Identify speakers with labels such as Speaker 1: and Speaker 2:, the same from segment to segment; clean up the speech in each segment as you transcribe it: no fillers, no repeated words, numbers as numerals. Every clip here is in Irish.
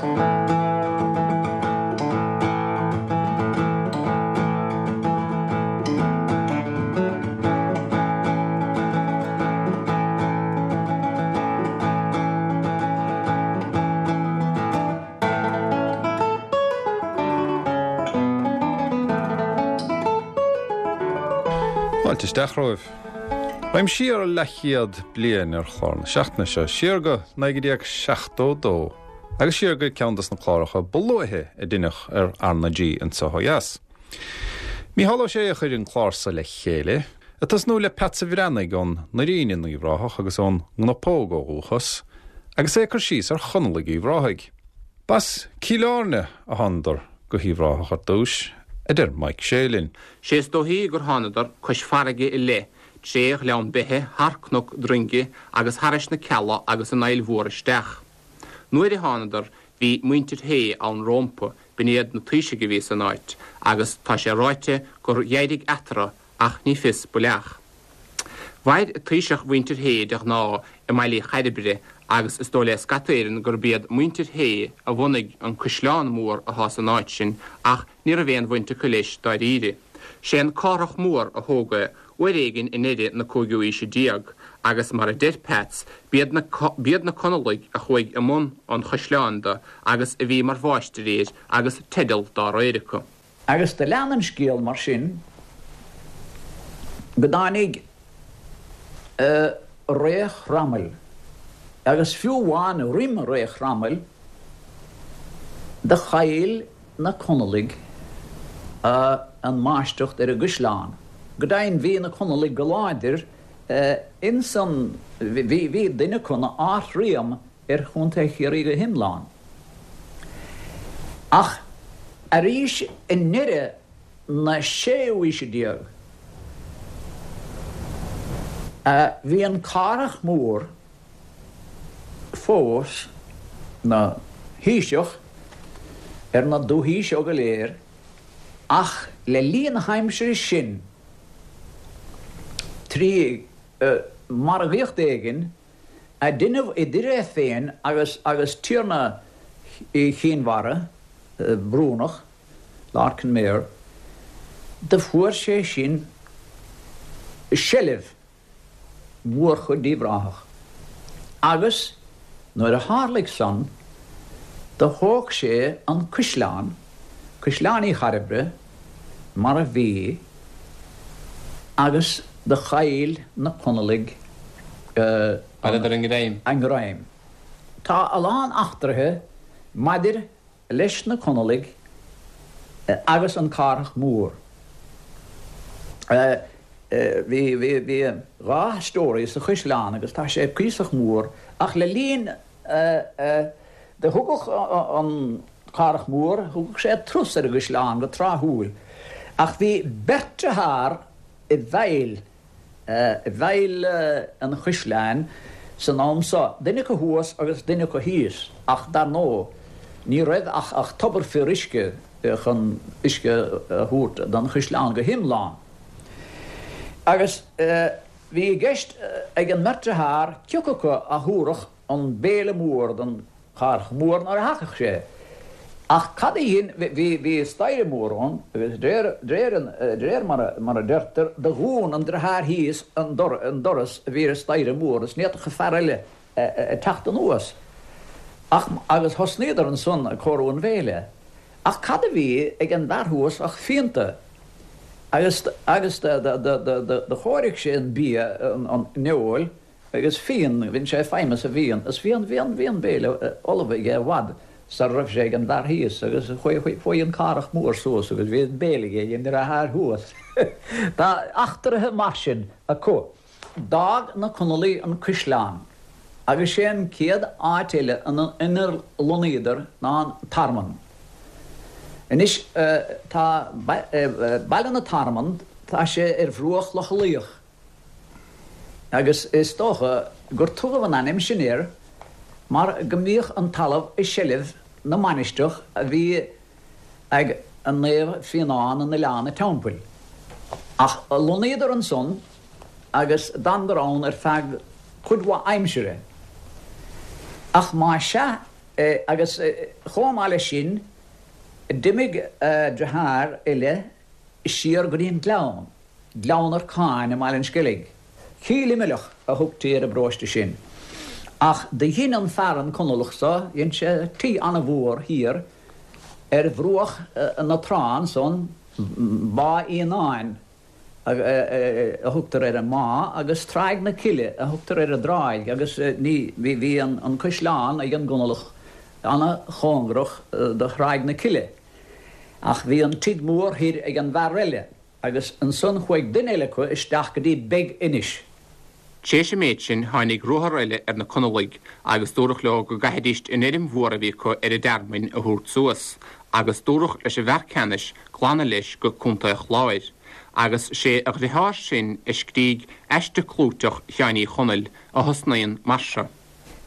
Speaker 1: Fáilte isteach romhaibh. Raghaim siar leathchéad bliain ar chlár na seachtaine seo, siar go 1972 agus siar go ceann dos na cláracha ba luaithe a deineadh ar R na G anseo ó dheas. Mícheál Ó Sé a chuir an clár so le chéile, ag tosnú le Peatsa Bhreathnaigh ón nDoirín in Uíbh Ráthach agus ón gCnapóg ó dhúchas, agus é ag cur síos ar Chonallaigh Uíbh Ráthaigh. B'as Cill Airne a thánadar go hUíbh Ráthach ar dtúis, a deir Mike Sé linn.
Speaker 2: Sé is dóichí gur thánadar cois farraige i leith, tré Ghleann Beithe, thar Cnoc Droinge agus thairis na Cealla agus an Aill Mhór isteach. Nuair a thánadar bhí muintir Shé ann rómpa, b'in iad na taoisigh a bhí san áit, agus tá sé ráite gur dh'éirigh eatarthu ach ní fios baileach. Mhair taoiseach mhuintir Shé de ghnáth i mBaile Uí Chairbre agus is dóigh le scata Éireann gurb iad muintir Shé a bhunaigh an caisleán mór atá san áit sin ach ní raibh aon bhaint acu leis dáiríre. Sé an Cárthach Mór a thóg é uair éigin i ndeireadh na cúigiú aoise déag agus mar a deir Peats b'iad na b'iad na Conallaigh a chuaigh i mbun an chaisleáin do agus a bhí mar mháistrí air agus teideal dá réir acu.
Speaker 3: Agus do lean an scéal mar sin go dtáinig ré Chromail, agus fiú amháin roim ré Chromail, do chaill na Conallaigh an máistreacht ar an gcaisleán. Go deimhin bhí na Conallaigh go láidir ins an, bhí duine acu 'na Ard-Rí ar Chontae Chiarraí go hiomlán. Ach arís i ndeireadh na séú haoise déag, bhí an Cárthach Mór fós 'na thaoiseach ar na dúthaí seo go léir, ach le linn na haimsire sin, trí mhargaíocht éigin, a deineadh idir é féin agus agus tiarna Chinn Mhara, Brúnach, Lord Kenmare, do fuair sé sin seilbh mhórchuid d'Uíbh Ráthach agus nuair a tharlaigh san do thóg sé an cuisleán, Cuisleán Uí Chairbre, mar a bhí agus do chaill na Conallaigh
Speaker 2: Chailleadar a ngreim.
Speaker 3: a ngreim. Tá a lán eachtraithe maidir leis na Conallaigh agus an Cárthach Mór. Bhí bhí dha story sa chuisleán agus tá sé cuíosach mór ach le linn Do thugadh an Cárthach Mór, thugadh sé turas ar an gcaisleán go tráthúil, ach bhí beirt dearthár i bhfeighil, i bhfeighil an chaisleáin san am so, duine acu thuas agus duine acu thíos, ach dar ndóigh ní raibh ach tobar fíoruisce chun uisce a thabhairt don chaisleán go hiomlán. Agus bhí i gceist ag an mbeirt dearthár cioca acu a thabharfadh an béile mór don Chárthach Mór nuair a thagadh sé. Ach cad a dhein, bhí, bhí staighre mór ann agus d'réir, d'réir an, d'réir mar a, mar a deirtear, do dhún an driotháir thíos an dor, an doras a bhí ar an staighre mór is ní fhéadfadh an fear eile teacht anuas. Ach, agus thosnaíodar ansan ag cóiriú an bhéile. Ach cad a bhí ag an bhfear thuas ach fíonta. Agus, agus do, do, do, do, do chóirigh sé an bia, an, an fheoil, Agus fíon, bhain sé feidhm as an bhfíon, is bhí an, bhí an, bhí an béile ullamh aige i bhfad sara raibh sé ag an bhfear thíos, agus chuaigh, chuaigh an Cárthach Mór suas agus bhí an béile aige ag an ndriotháir thuas. Tá eachtraithe mar sin acu. D'fhág na Conallaigh an caisleán agus sé an chéad áit eile inar lonnaíodar ná an Tearmann. Anois tá Baile na Tearmann, tá sé ar bhruach Locha Lao. agus is dócha gur tugadh an ainm sin air mar go mbíodh an talamh i seilbh na mainistreach a bhí ag Naomh Fíonán in Oileán a' Teampaill. Ach lonnaíodar ansan agus d'fhanadar ann ar feadh cuid mhaith aimsire. Ach má sea. Agus chomh maith leis sin, d'imigh deartháir eile siar go dtí an Gleann, Gleann Arcáin i mBaile an Sceilg. Cill Imileach a thugtaí ar an bparóiste sin. Ach do dhein an fear, an Conallach so, dhein sé tigh ana-mhór thiar ar bhruach na trá ansan, Bá Fhíonáin a thugtar ar an mbá agus Tráigh na Cille a thugtar ar an dtráigh agus ní, bhí an caisleán ag an gConallach ana-chóngarach do Thráigh na Cille. Ach bhí an tigh mór thoir ag an bhfear eile agus ansan chuaigh duine eile acu isteach go dtí Beig Inis.
Speaker 2: Tréis an méid sin tháinig ruathar eile ar na Conallaigh agus dúradh leo go gcaithfidíst an fheirm mhór a bhí acu ar an dTearmainn a thabhairt suas agus dúradh leis an bhfear ceannais glanadh leis go Contae an Chláir agus sé a dhriotháir sin a scrígh aiste clúiteach Sheáin Uí Chonaill a thosnaíonn mar seo.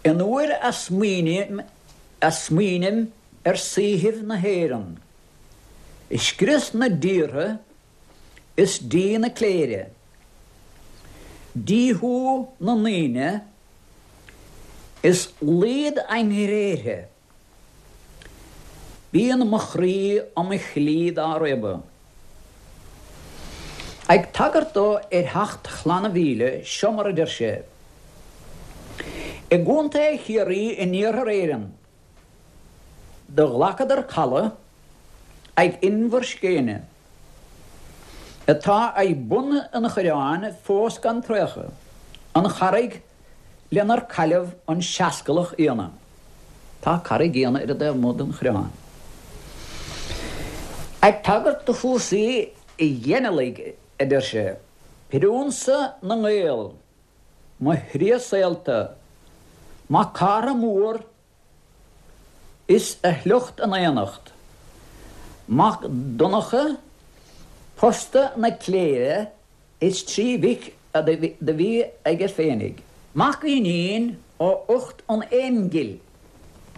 Speaker 3: An uair a smaoiním a smaoinim ar saoithibh na hÉireann, i scrios na dtíortha is díth na cléire, díothú na ndaoine is laghad a ngréithe, bíonn mo chroí 'om chlí dá réabadh. Ag tagairt dó ar theacht Chlanna Mhíle, seo mar a deir sé, I gContae Chiarraí in Iarthar Éireann, Do ghlacadar caladh ag Inbhir Scéine, atá ag bun an Choireáin fós gan traochadh, an charraig lenar cailleadh an Seascalach Fhianna. Tá Carraig Fhianna ar an dtaobh amuigh den Choireán. Ag tagairt do chúrsaí ghinealaigh, a deir sé, Priúnsa na nGael, mo thriath saolta, Mac Cártha Mór is a shliocht in aonacht, Mac Donncha posta na cléire is 3 mhic do bhí aige féinig. Mac Fhínín ó ucht an Aonghill,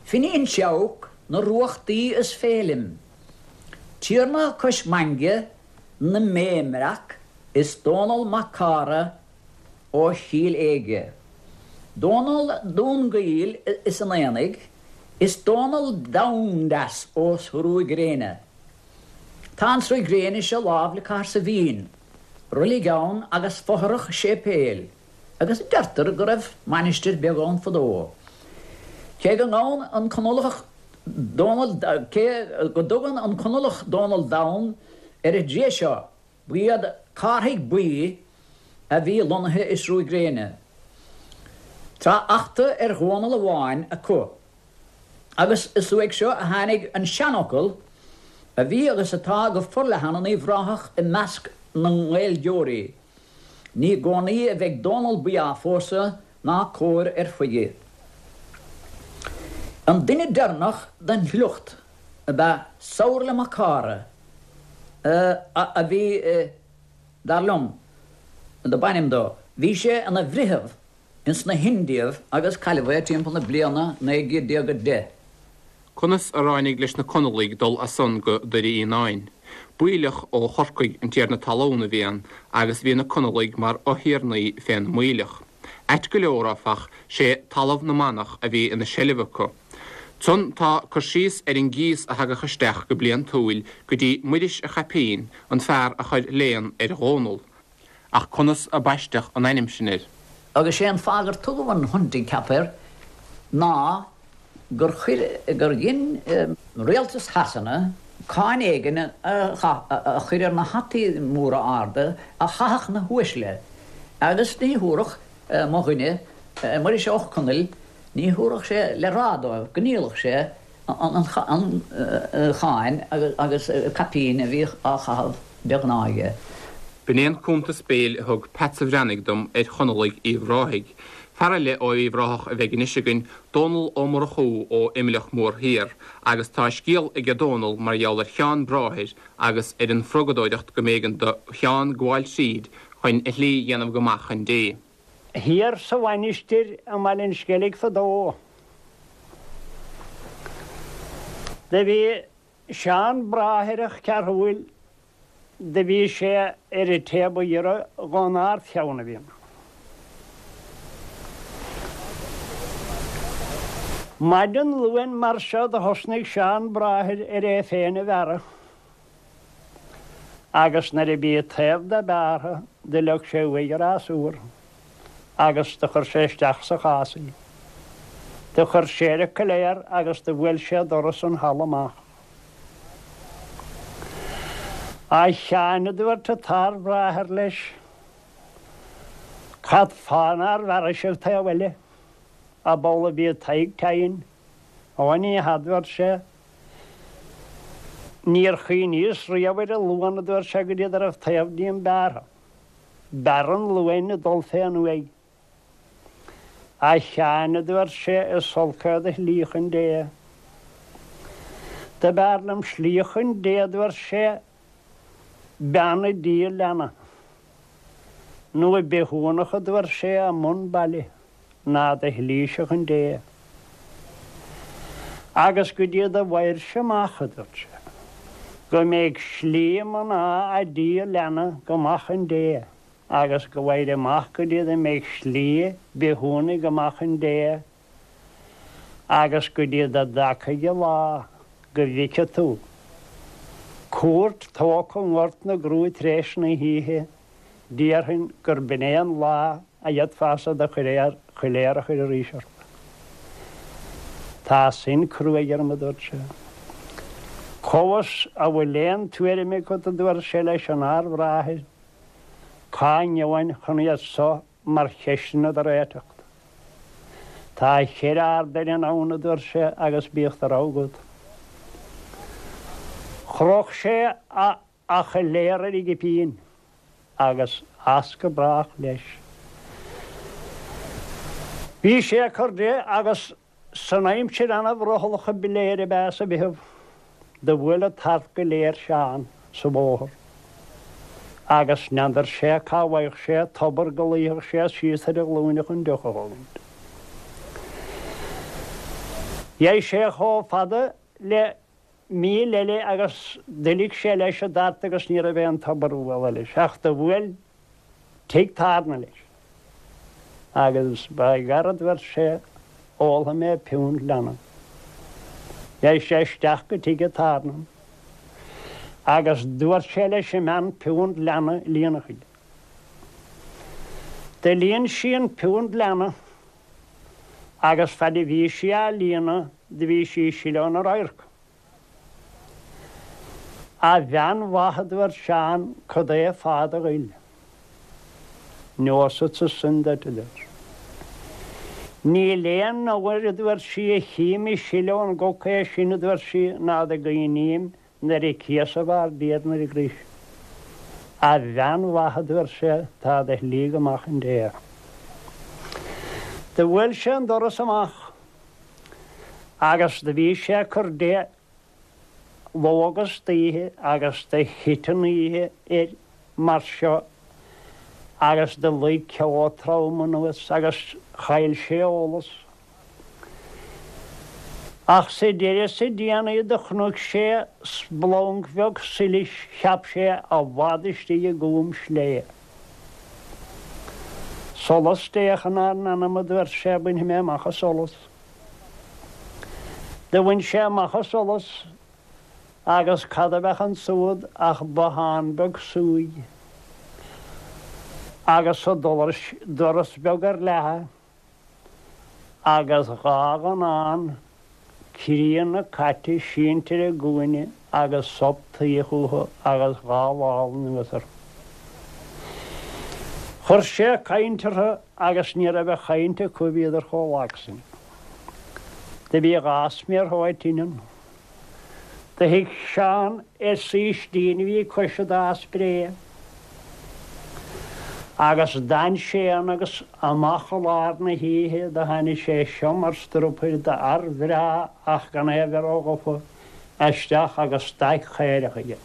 Speaker 3: Finín Seabhac na Ruachtaí is Féilim, Tiarna cois Mainge na mBéimbreac is Dónall Mac Cártha ó Chill Éige, Dónall Dún Gaill is an Aonaigh, is Dónall Domhndeas ó Sruth Gréine. Tá an Sruth Gréine seo lámh le Cathair Saibhín, roilig ann agus fothrach séipéil, agus deirtear go raibh mainistir beag ann fadó. Cé go ngabhann an Conallach Dónall, cé go dtugann an Conallach Dónall Donn ar an dtriath seo, Ba iad Cárthaigh Buí a bhí lonnaithe i Sruth Gréine. Tá eachtra ar Dhónall amháin acu, agus is uaidh seo a tháinig an seanfhocal a bhí agus atá go forleathan in Uíbh Ráthach i measc na nGaeilgeoirí, Ní i gcónaí a bheidh Dónall Buí á phósadh ná cóir ar chuige. An duine deireanach den shliocht ab ea Somhairle Mac Cártha, a bhí, dar liom, do b'ainm dó. Bhí sé ina bhreitheamh ins na hIndiaibh agus cailleadh é timpeall na bliana 1910.
Speaker 2: Conas a ráinig leis na Conallaigh dul as san go Doire Fhíonáin? Baoilleach ó Chorcaigh an tiarna talún a bhí ann agus bhí na Conallaigh mar fhothiarnaí fén mBaoilleach. Ait go leor, áfach, sé talamh na manach a bhí ina seilbh acu. Ansan tá cur síos ar an gcíos a thagadh isteach go bliantúil go dtí Muiris a' Chaipín, an fear a chuir léan ar Dhónall. Ach conas a baisteadh an ainm sin air?
Speaker 3: Agus sé an fáth gur tugadh an Hunting Cap air ná gur chuir, gur dhein rialtas Shasana cáin éigin a chur ar na hataí móra arda a chaitheadh na huaisle agus ní thabharfadh mo dhuine, Muiris Ó Conaill, Ní thabharfadh sé le rá dóibh go ndíolfadh sé an cháin agus caipín a bhíodh á chaitheamh de ghnáth aige.
Speaker 2: B'in é an cuntas béil a thug Peatsa Bhreathnaigh dom ar Chonallaigh Uíbh Ráthaigh. Fear eile ó Uíbh Ráthach a bheidh anois againn, Dónall Ó Murchú ó Imleach Mór Thiar, agus tá scéal aige Dónall mar gheall ar Sheán Bráthair agus ar an phrugadóireacht go mb'éigean do Sheán gabháil tríd chun a shlí dhéanamh go maith chun Dé.
Speaker 4: Thiar sa mhainistir i mBaile an Sceilg fadó do bhí Seán Bráthaireach Cearthúil do bhí sé ar an té ba ghiorra dhon Ard-Cheann a bhí ann. Maidin Luain mar seo do thosnaigh Seán Bráthair ar é féin a bhearradh agus nuair a bhí taobh de bearrtha do leag sé uaidh a rasúr agus do chuir sé isteach sa chás í. Do chuir sé ar a coiléar agus do bhuail sé doras an halla amach. A Sheáin, a dúirt an t-ardbhráthair leis, cad fáth nár bhearrais an taobh eile? Ab amhlaidh a bhí Tadhg tinn? Ó ní hea, a dúirt sé. Níor chuimhníos riamh ar an Luan, a dúirt sé, go dtí go raibh taobh díom bearrtha. B'fhearr an Luan ag dul fén uaigh. A Sheáin, a dúirt sé, is olc é do shlí chun Dé. Do b'fhearr liom slí chun Dé, a dúirt sé, bean ag díol leanna, nó bithiúnach, a dúirt sé, i mbun baile, ná do shlíse chun Dé. Agus go dtí do bhfaighirse amach, a dúirt sé, go mbeidh slí mná a' díol leanna go maith chun Dé. agus go bhfaighir amach go dtí do mbeidh slí bithiúnaigh go maith chun Dé, agus go dtí do dtagfaidh an lá go bhfeice tú cúirt tógtha i nGort na gCrú tar éis na hoíche, déarfainn gurb in é an lá a fhéadfása do choiléar a chur arís ort. Tá sin cruaidh orm, a dúirt sé. Cá bhfios an bhfuil aon tuairim agat, a dúirt sé leis an Ardbhráthair, Cá ngeobhainn chun iad so mar cheisteanna do réiteacht? Tá cheithre ard-oileán ann, a dúirt sé, agus bíodh do rogha agat. Chroch sé a choiléar ar a chipín agus as go brách leis. Bhí sé ag cur de agus San aimsir ana-bhrothallach a ba léir ab ea sa Mheitheamh, do bhuail an tart go léir Seán sa bhóthar agus n'fheadar sé cá bhfaigheadh sé tobar go luífeadh sé síos ar a ghlúine chun deoch a thógaint. Dheigh sé chomh fada le míle eile agus d'fhuiligh sé leis an dtart agus ní raibh aon tobar a bhualadh leis ach do bhuail tigh tairne leis agus by gar a dúirt sé ólfaidh mé piúnt leanna. Dheigh sé isteach go tigh an tairne agus dúirt sé leis an mbean piúnt leanna a líonadh chuige. Do líon sí an piúnt leanna agus fad a bhí sí á líonadh do bhí sí ag sileadh óna radharc. A bhean mhaith, a dúirt Seán, cad é fáth do ghoil? Neosadsa sin duit, a dúirt sí. Níl aon uair, a dúirt sí, a chím ag sileadh ón gcoca é sin, a dúirt sí, ná do gcuimhním nuair a cíosadh ár dTiarna ar an gcrois. A bhean mhaith, a dúirt sé, tá do shlí go maith chun Dé. Do bhuail sé an doras amach. Agus do bhí sé ag cur de ló agus d'oíche agus do thit an oíche air mar seo agus do luigh ceo trom anuas agus chaill sé eolas. Ach sa deireadh sa déanaí do chonaic sé splanc bheag solais cheap sé i bhfad istigh i gcúm sléibhe. Solas Dé chun ár n-anam, a dúirt sé, bainfidh mé amach an solas. Do bhain sé amach an solas agus cad a bheadh ansúd ach bothán beag súigh agus an doras beag ar leathadh agus 'ghá dhonnán críonna caite sínte ar an gcúinne agus sop tuí chúthu agus 'ghá lámh anuas orthu. Chuir sé caint orthu agus ní raibh a chaint acu bhíodar chomh lag sin. Do bhí 'ghá sméar shóid tinn ann. Do shuigh Seán ar saoistín a bhí cois an dá spré agus d'fhan sé ann agus amach i lár na hoíche do tháinig sé seo mar strupaire d'fhear bhreá ach gan é a bheith ró-ghafa isteach agus staic chaorach aige.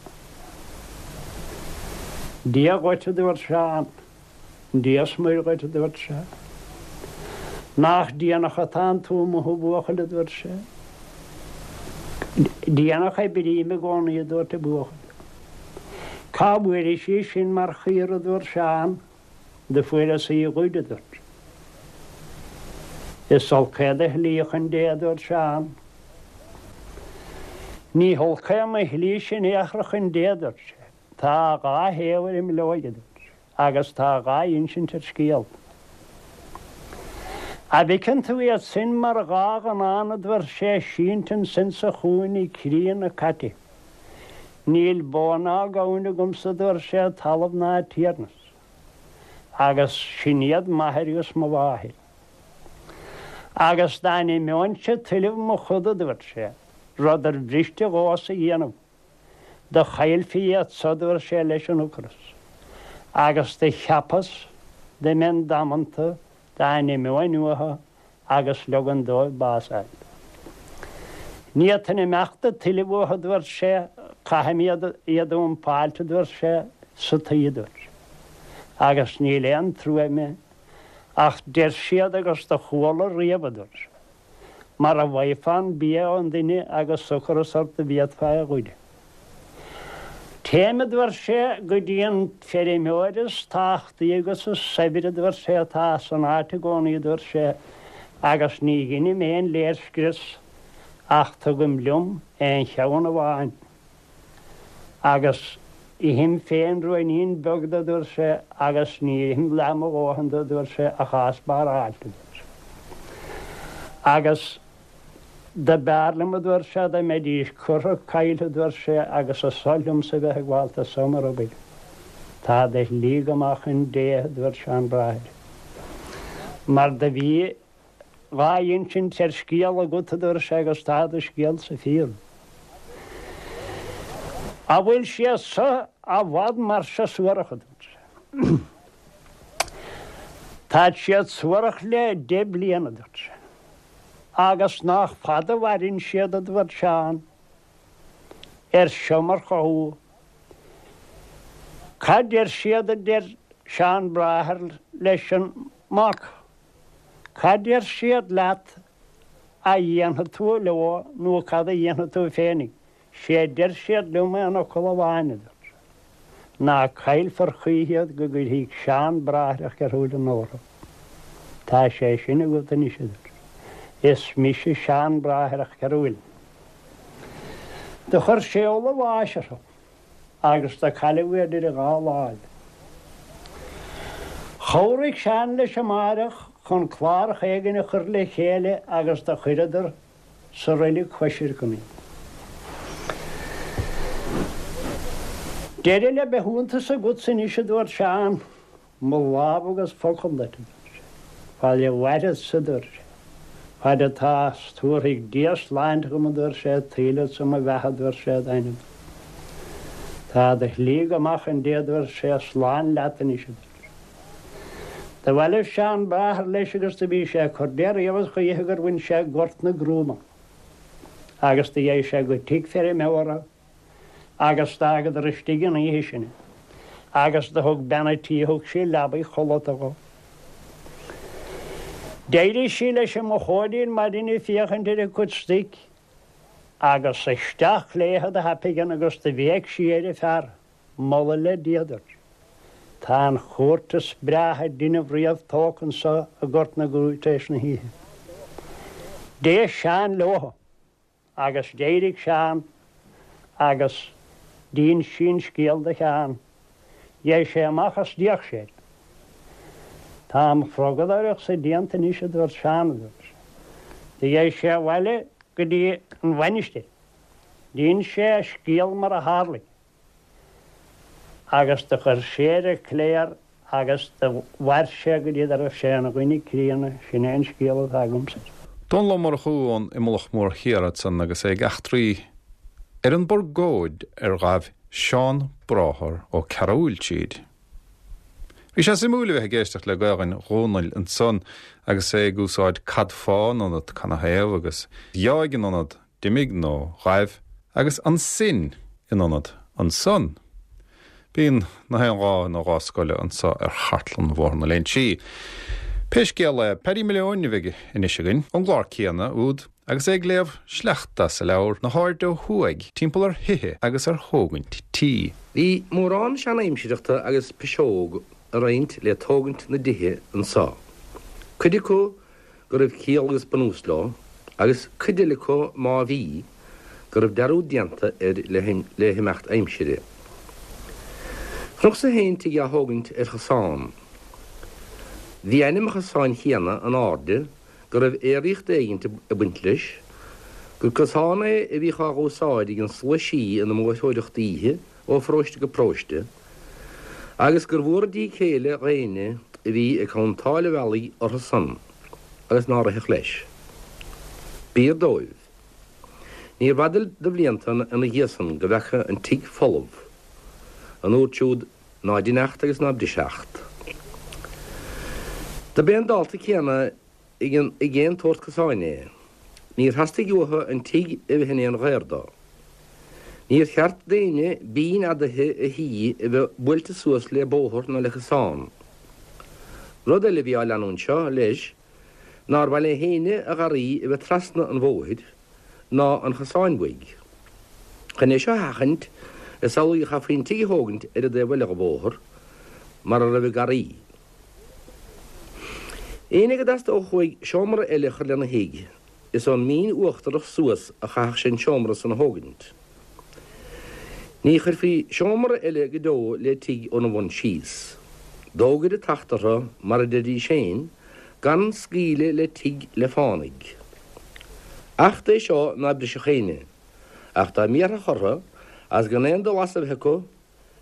Speaker 4: Dia dhuit, a dúirt Seán. Dia 's Muire dhuit, a dúirt sé. Nach déanach atánn tú amuigh, a bhuachaill, a dúirt sé. Déanach a oibrím i gcónaí, a dúirt an buachaill. Cá bhfuairis í sin mar chaora, a dúirt Seán. Do fuaireas í a ghoid, a dúirt sé. Is olc é do shlí chun Dé, a dúirt Seán. Ní holc é mo shlíse in aon chor chun Dé, a dúirt sé. Tá a dhá thaobh ar an mbileoig, a dúirt sé, agus tá a dhá insint ar scéal. A' bhfeiceann tú iad sin mar dhá ghnán, a dúirt sé, sínte ansin sa chúinne críonna caite. Níl bó ná gamhain agamsa, a dúirt sé, talamh ná tiarnas. Agus sin iad m'athair agus mo mháthair. Agus dá n-imeoinnse tuilleamh mo choda, a dúirt sé, rud ar bhriste dhomhsa a dhéanamh, do chaillfí iad so, a dúirt sé, leis an ocras. Agus do cheapas dá mbeinn damanta dá n-imeoinn uathu agus leogan dóibh bás a fháil. Ní fhéadfainn imeacht ag tuilleamh uathu, a dúirt sé, caithfidh mé iad a dhumpáilt, a dúirt sé, sa tuí, a dúirt sé, agus níl aon trua ime, ach deir siad agus do chuala riamh, a dúirt sé, mara bhfaighfeá an bia ón duine agus ocras ort do bhféadfá é a ghoid. Téim, a dúirt sé, go dtí an feirmeoir is tábhachtaí agus is saibhre, a dúirt sé, atá san áit i gcónaí, a dúirt sé, agus ní dheinim aon léirscrios ach tugaim liom aon cheann amháin agus ithim féin ruainnín beag de, a dúirt sé, agus ní ithim leath mo dhóthain de, a dúirt sé, ach á spáráilt, a dúirt sé. Agus. Do b'fhearr liom, a dúirt sé, dá mbeidís curtha caillte, a dúirt sé, agus is oth liomsa bheith ag gabháilt as so mar obair. Tá do shlí go maith chun Dé, a dúirt Seán Bráthair. Mar do bhí dhá insint ar scéal agat, a dúirt sé, agus tá do scéalsa fíor. A bhfuil siad so i bhfad mar seo suarach, a dúirt sé. Táid siad suarach le deich bliana, a dúirt sé. Agus nách fada a mhaireann siad, a dúirt Seán, ar seo mar chothú. Cad deir siad, a deir Seán Bráthair leis an mac, cad deir siad leat a dhéanfaidh tú leo nó cad a dhéanfaidh tú féinig? Sé a deir siad liom aon fhocal amháin, a dúirt sé, ná caillfear choíche iad go gcuirfidh Seán Bráthair Cheathrúileann orthu. Tá sé sin agat anois, a dúirt sé. Is mise Seán Bráthair Cheathrúileann. Do chuir sé ola bháis orthu agus do cailleadh iad idir a dhá láimh. Chabhraigh Seán leis amáireach chun clárach éigin a chur le chéile agus do chuireadar sa roilig choisreacan iad. Deireadh le bithiúntas agatsa anois, a dúirt Seán, mo lámh agus focal duit, a dúirt sé. Fad a mhairfeadsa, a dúirt sé, fad atá 's tabharfaidh Dia sláinte dhom, a dúirt sé, tuillfeadsa mo bheatha, a dúirt sé, d'ainm. Tá do shlí go maith chun Dé, a dúirt sé, slán leat anois, a dúirt sé. Do bhailigh Seán Bráthair leis agus do bhí sé ag cur de riamh is choíche gur bhain sé Gort na gCrúmán agus do dheigh sé go tigh feirmeora agus d'fhágadar istigh an oíche sin é agus do thug bean a' tí thug sí leabaidh chodlata dhó. D'éirigh sí leis an mochóidín maidin ag féachaint ar a cuid stoic agus isteach léithe do thapaidh agus do bhéic sí ar a fear. Moladh le Dia duit. Tá an chúirt is breátha a deineadh riamh tógtha anso i nGort na gCrú tar éis na hoíche. D'éist Seán leothu agus d'éirigh Seán agus d'íns sí an scéal do Sheán. Dheigh sé amach is d'fhéach sé air. Tá mo chrogadóireacht-sa déanta anois a dúirt Seán, a dúirt sé. Do dheigh sé abhaile go dtí an mhainistir. D'íns sé a scéal mar a tharlaigh agus do chuir sé ar an chléir agus do mhair sé go dtí go raibh sé ina dhuine críonna, sin é an scéal atá agamsa air.
Speaker 1: Dónall Ó Murchú ón Imleach Mór Thiar ansan agus é ag eachtraí ar an bpurgóid ar ghabh Seán Bráthair Ó Cearúill tríd. Bhí sé suimiúil a bheith ag éisteacht le Gaolainn Dhónaill ansan agus é ag úsáid cad fáth in ionad canathaobh agus dheáigh in ionad d'imigh nó ghaibh agus ansin in ionad ansan. Bíonn na haon dhá ina dhá scoile anso ar chartlann Bhóthar na Léinsí. Pé scéal é, Paddy Malone a bheidh anois againn, ón gclár céanna úd, agus é ag léamh sleachta as a leabhar Na hAirde Ó Thuaidh, timpeall ar thithe agus ar thógaint tí.
Speaker 5: Bhí mórán sean-aimsireachta agus piseog a roinnt le tógaint na dtithe anso. Cuid acu. go raibh ciall agus bunús leo, agus cuid eile acu má bhí, go raibh dearúd déanta air le himeacht aimsire. Chonacsa féin tigh á thógaint ar chosán. Bhí ainm an chosáin chéanna in airde go raibh aeraíocht éigint ag baint leis, gur cosán é a bhíodh á dh'úsáid ag an slua sí ina mbóithreoireacht oíche ó pharóiste go paróiste, agus gur mhór an díth céille dh'éinne a bhí ag cuntáil an bhealaigh orthu san agus nár rithfeadh leis. B'fhíor dóibh. Níorbh fhada de bhlianta ina dhiaidh san go bhfeaca an tigh folamh, an uair siúd ná dein acht agus ná bris acht. Do b'é an dálta céanna ag aon tsórt cosáin é. Níor theastaigh uathu an tigh a bheith in aon ghaor dó. Níor cheart d'éinne binn fhadaithe a thí a bheith buailte suas le bóthar ná le cosán. Rud eile a bhí á leanúint seo, leis, nár mhaith le héinne a gharraí a bheith trasna an bhóthair ná an chosáin uaidh. Chun é seo a sheachaint, is amhlaidh a chaithfí an tigh a thógaint ar an dtaobh eile dho bhóthar, mar a raibh an garraí. Éinne go dteastódh uaidh seomra eile a chur lena thigh, is ón mbinn uachtarach suas a chaithfeadh sé an seomra san a thógaint. Ní chuirfí seomra eile go deo le tigh óna bhun síos. D'fhógair an tAcht orthu, mar a deiridís féin, gan scaoileadh le tigh le fánaidh. Acht é seo ná brisfeadh éinne, ach dá mbiarfadh orthu, agus gan aon dul as a bheith acu,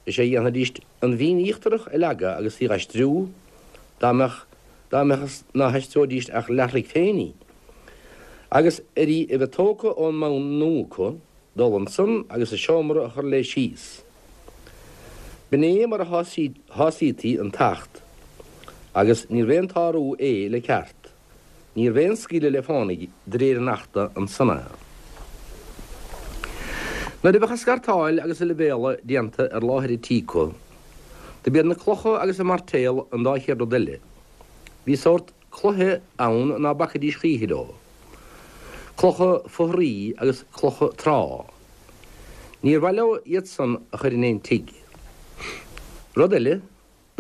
Speaker 5: is é a dhéanfaidíst an bhinn íochtarach a leagadh agus í dh'aistriú, dá mbeadh, dá mbeadh is ná haistreoidíst ach leathtroigh féin í. Agus ar í a bheith tógtha ón mbonn nua acu, dul ansan agus an seomra a chur léi síos. B'in é mar a shásaítí an tAcht, agus níorbh aon tsárú é le ceart. Níorbh aon scaoileadh le fánaidh de réir an Achta ansan é. Nuair a bheadh an scartáil agus an leibhéaladh déanta ar láthair an tí acu, do b'iad na clocha agus an mairtéal an dá chéad rud eile. Bhí sórt cloiche ann ná bacaidís choíche leo. Clocha fothraí agus clocha trá. Níor mhaith leo iad san a chur in aon tigh. Rud eile,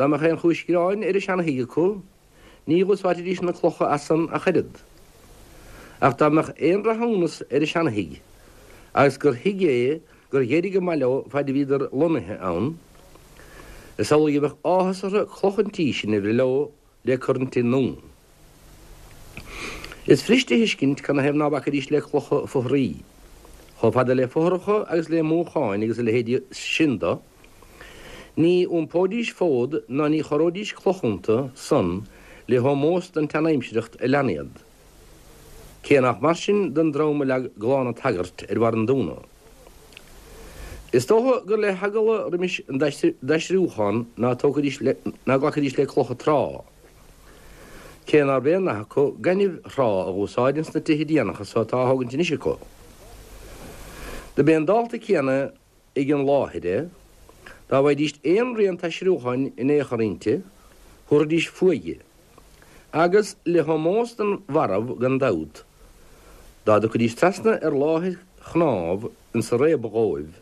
Speaker 5: Dá mbeadh aon chúis gráin ar an seana-thigh acu, ní dh'úsáidfidís na clocha as san ach oiread. Ach dá mbeadh aon rathúnas ar an seana-thigh, agus gur thigh é gur dh'éirigh go maith leo faid a bhíodar lonnaithe ann, is amhlaidh a bheadh áthas orthu cloch an tí sin a bhreith leo le cur an tigh nua. Is fuirist a thuiscint canathaobh ná bacaidís le clocha fothraí. Chomh fada le fothracha agus le múcháin agus a leithéidí sin do, ní iompóidís fód ná ní chorróidís cloch iontu san le hómós don tseanaimsireacht a lean iad. Cé nach mar sin don dream a leag Gleann an tSagairt ar bharr an Dúna. Is dócha gur le heagla roimis an dtaistriúchán ná tógfaidís ná glacfaidís le clocha trá. Cé nárbh aon nath acu gaineamh thrá a dh'úsáid ins na tithe déanacha so atá á thógaint anois acu. Do b'é an dálta céanna ag an láthair é, dá bhfaighidíst aon rian taisriúcháin in aon chor inti, thabharfaidís fúithi. Agus le hómós don mharbh gan dabht, dá dtiocfaidís trasna ar láthair chnámh insa réabadh dhóibh,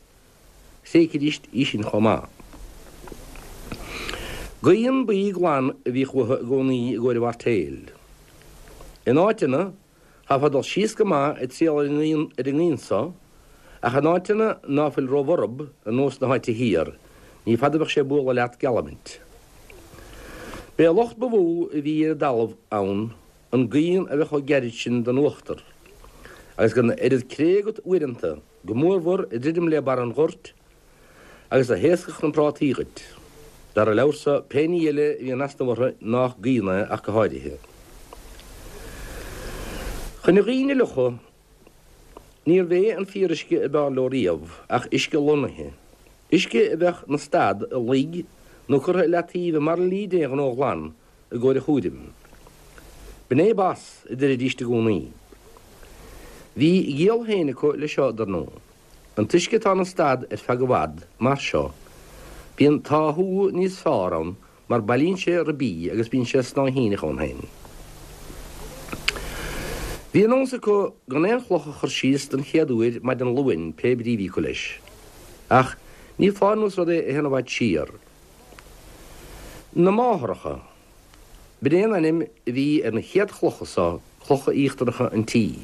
Speaker 5: thréigfidís í sin chomh maith. Gaoth buí glan a bhíodh uathu i gcónaí i gcomhair an mhairtéil. In áiteanna, chaithfeá dul síos go maith ag triall ar an ngaoth so, ach in áiteanna ná fuil róbhorb, ar nós na háite thiar, ní fada a bheadh sé ag bualadh leat, geallaimid. B'é an locht ba mhó a bhí ar an dtalamh ann an gaoth a bheith chomh gairid sin don uachtar, agus gan oiread cré agat uaireanta, go mórmhór ag druidim le barr an ghoirt, agus a thaoscfadh na prátaí dhuit. Dar an leabhar so, pé ní eile a bhí in easnamh orthu nách gaoth é ach go háirithe. Chun an ghaoin a fhliuchadh, níorbh é an fíoruisce a b'fhearr leo riamh ach uisce lonnaithe, uisce a bheadh 'na stad i loig nó curtha i leataobh i mbairillí d'aon ghnó glan i gcomhair a chúraim. B'in é bas, a deiridíst i gcónaí. Bhí a gciall féin acu leis seo, dar ndóigh. An t-uisce atá ina stad ar feadh i bhfad, mar seo, bíonn táthú níos fearr ann mar bailíonn sé ribí agus bíonn sé snáithíneach ann féin. Bhí an nós acu gan aon chloch a chur síos don chéad uair maidin Luain pé brí a bhí acu leis. Ach ní foláir nó is rud é a théann i bhfad siar. Na Máthaireacha. B'in é an ainm a bhí ar na chéad chlocha so. clocha íochtaracha an tí.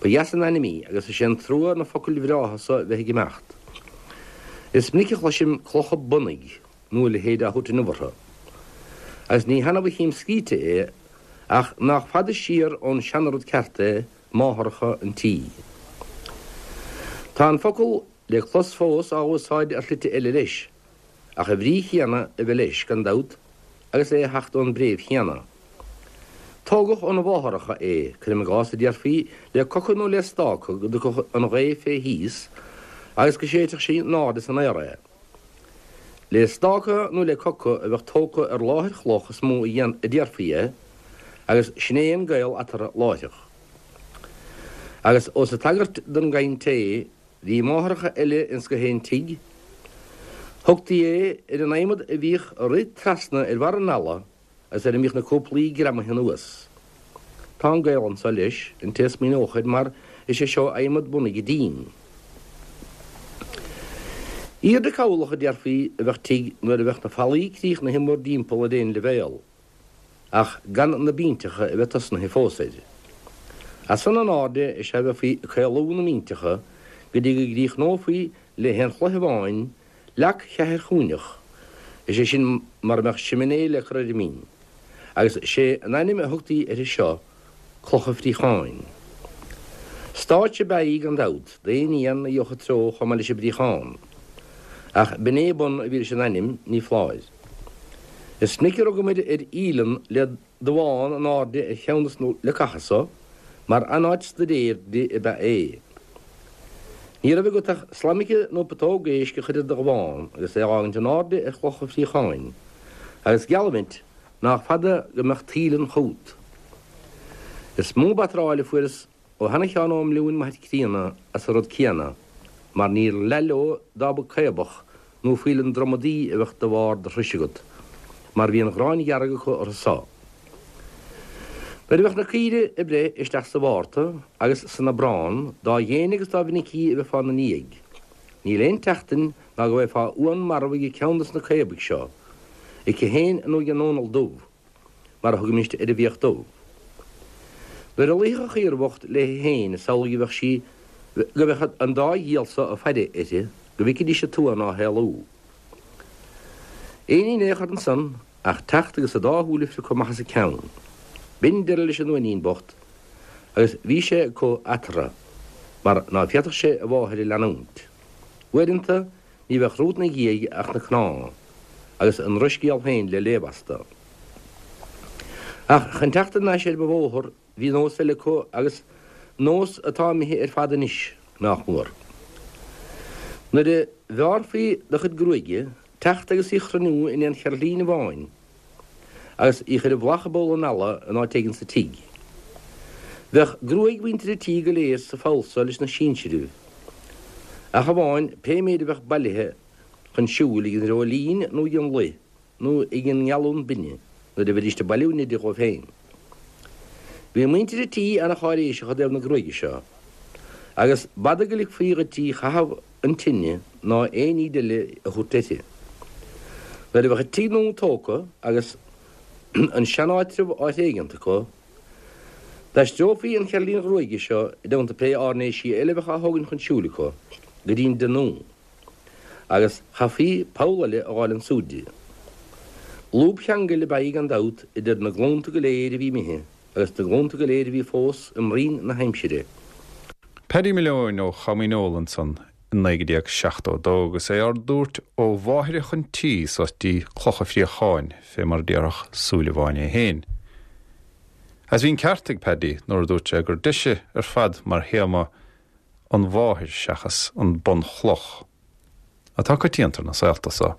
Speaker 5: Ba dheas an ainm í agus is é an trua na focail bhreátha so bheith ag imeacht. Is minic a chloisim clocha bunaidh nó a leithéid á thabhairt inniu orthu. Agus ní hannamh a chím scríte é ach nách fada siar ón seanarud ceart é máthaireacha an tí. Tá an focal le clos fós á úsáid ar shlite eile leis, ach an bhrí chéanna a bheith leis, gan dabht, agus é a theacht ón bpréimh chéanna. Tógadh óna mháthaireacha é, cuirim i gcás, a déarfaí, le coca nó le stáca go dtiocfadh an ghaoth fé thíos agus go séidfeadh sí in airde san aer é. Le stáca nó le coca a bheadh tógtha ar láthair chloch is mó a déarfaí é, agus sin é an gaol eatarthu láithreach. Agus ós ag tagairt don gcaint é, bhí máthaireacha eile ins gach aon tigh. Thugtaí é ar an adhmad a bhíodh ag rith trasna ar bharr an fhalla agus ar a mbíodh na cúplaí greamaithe anuas. Tá an gaol anso leis, an té a smaoineodh air, mar is é seo adhmad bunaidh an dín. Aoirde cabhlach, a déarfaí, a bheadh tigh nuair a bheadh na fallaí críochnaithe mórdtimpeall ar aon leibhéal, ach gan na binnteacha a bheith tosnaithe fós air. As san in airde is ea a bheifí ag caolú na mbinnteacha go dtí go gcríochnófaí le haon chloich amháin leac cheathairchúinneach, is é sin mara mbeadh siminé le cur ar an mbinn, agus sé an ainm a thugtaí uirthi seo cloch an phríocháin. Stáitse ab ea í gan dabht, d'aon éan a gheobhadh a treo chomh maith leis an bpríochán. Ach b'in é bun a bhí leis an ainm, ní foláir. Is minic a rugamair ar fhaoileann le damhán in airde ar cheann de na leacacha so, mar an-áit staidéir di ab ea é. Ní raibh agat ach slaimice nó putóg éisc a chur ar do dhamhán agus é a dh'fhágaint in airde ar chloch an phríocháin, agus geallaimid nách fada go mbeadh taoileann chút. Is mó batráil a fuaireas ó sheana-Sheán Ó Mbliúin m'athair críonna as an rud céanna, mar níor leath leo dá mba caobach nó faoileann dromadaí a bheadh de bharr do thruis agat, mar bhí an ghráin dhearg acu orthu so. Nuair a bheadh na caoirigh ag breith isteach sa Mhárta agus san Aibreán, dá dhéine agus dá mhinicí a bheifeá 'na ndiaidh, níl aon tseachtain ná go bhfaighfeá uan marbh ag ceann dos na caobaigh seo, aici féin nó ag an Dónall Dubh, mar a thugaimist ar an bhfiach dubh. Nuair a luífeadh an chaora bhocht léi féin is amhlaidh a bheadh sí, go mbeadh an dá dhiabhal so ag faire uirthi, go bhficfidís an t-uan á héalú. Aon ní in aon chor ansan ach teacht agus a dá shúil a phriocadh amach as a ceann. B'in deireadh leis an uainín bocht agus bhí sé acu eatarthu mar ná féadfadh sé a mháthair a leanúint. Uaireanta Ní bheadh romhat 'na dhiaidh ach na cnámha, agus an drochscéal féin le léamh astu. Ach chun teacht thar n-ais ar mo bhóthar, bhí nós eile acu agus nós atá imithe ar fad anois, nách mór. Nuair a bheárrfaí do chuid gruaige, teacht agus í chruinniú in aon cheirtlín amháin, agus í chur i bhflach i bpoll an fhalla in áit éigin sa tigh. Bheadh gruaig mhuintir an tí go léir sa pholl so leis na sinsiribh, ach amháin pé méid a bheadh bailithe chun siúil ag an ndreoilín nó ag an luigh nó ag an ngealún binne nuair a bheidíst ag bailiú neide dhóibh féin. Bhí muintir an tí ana-cháiréiseach i dtaobh na gruaige seo, agus b'fhada go ligfí dhuit í chaitheamh an tine ná aon ní eile a thabhairt uirthi. Nuair a bheadh an tigh nua tógtha agus an seanáitreabh á thréigeant acu, d'aistreofaí an cheirtlín ghruaige seo, i dteannta pé áirnéisí eile a bheadh á thógaint chun siúil acu, go dtí'n dtigh nua, agus chaithfí poll eile a dh'fháil ansúd di. Lúb cheangail ab ea í gan dabht idir na glúnta go léir a bhí imithe agus na glúnta go léir a bhí fós i mbroinn na haimsire.
Speaker 1: Paddy Malone ó Chamaineoil ansan i 1972 agus é ár dtabhairt ó mháithreacha an tí suas dtí Cloch a' Phríocháin, fé mar a déarfadh Súilleabháin é féin. Agus bhí an ceart ag Paddy nuair a dúirt sé gur deise ar fad mar théama an mháthair seachas an bunchloch. Atá coitianta ar na saolta so.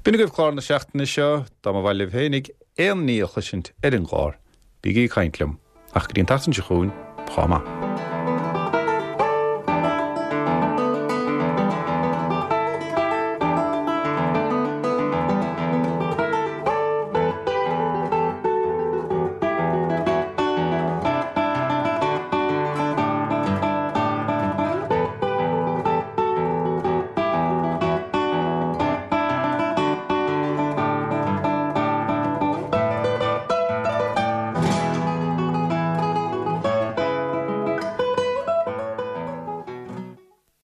Speaker 1: B'in agaibh clár na seachtaine seo. Dá mba mhaith libh féinig aon ní a chloisint ar an gclár, bígí ag caint liom. Ach go dtí an tseachtain seo chugainn, chomh maith.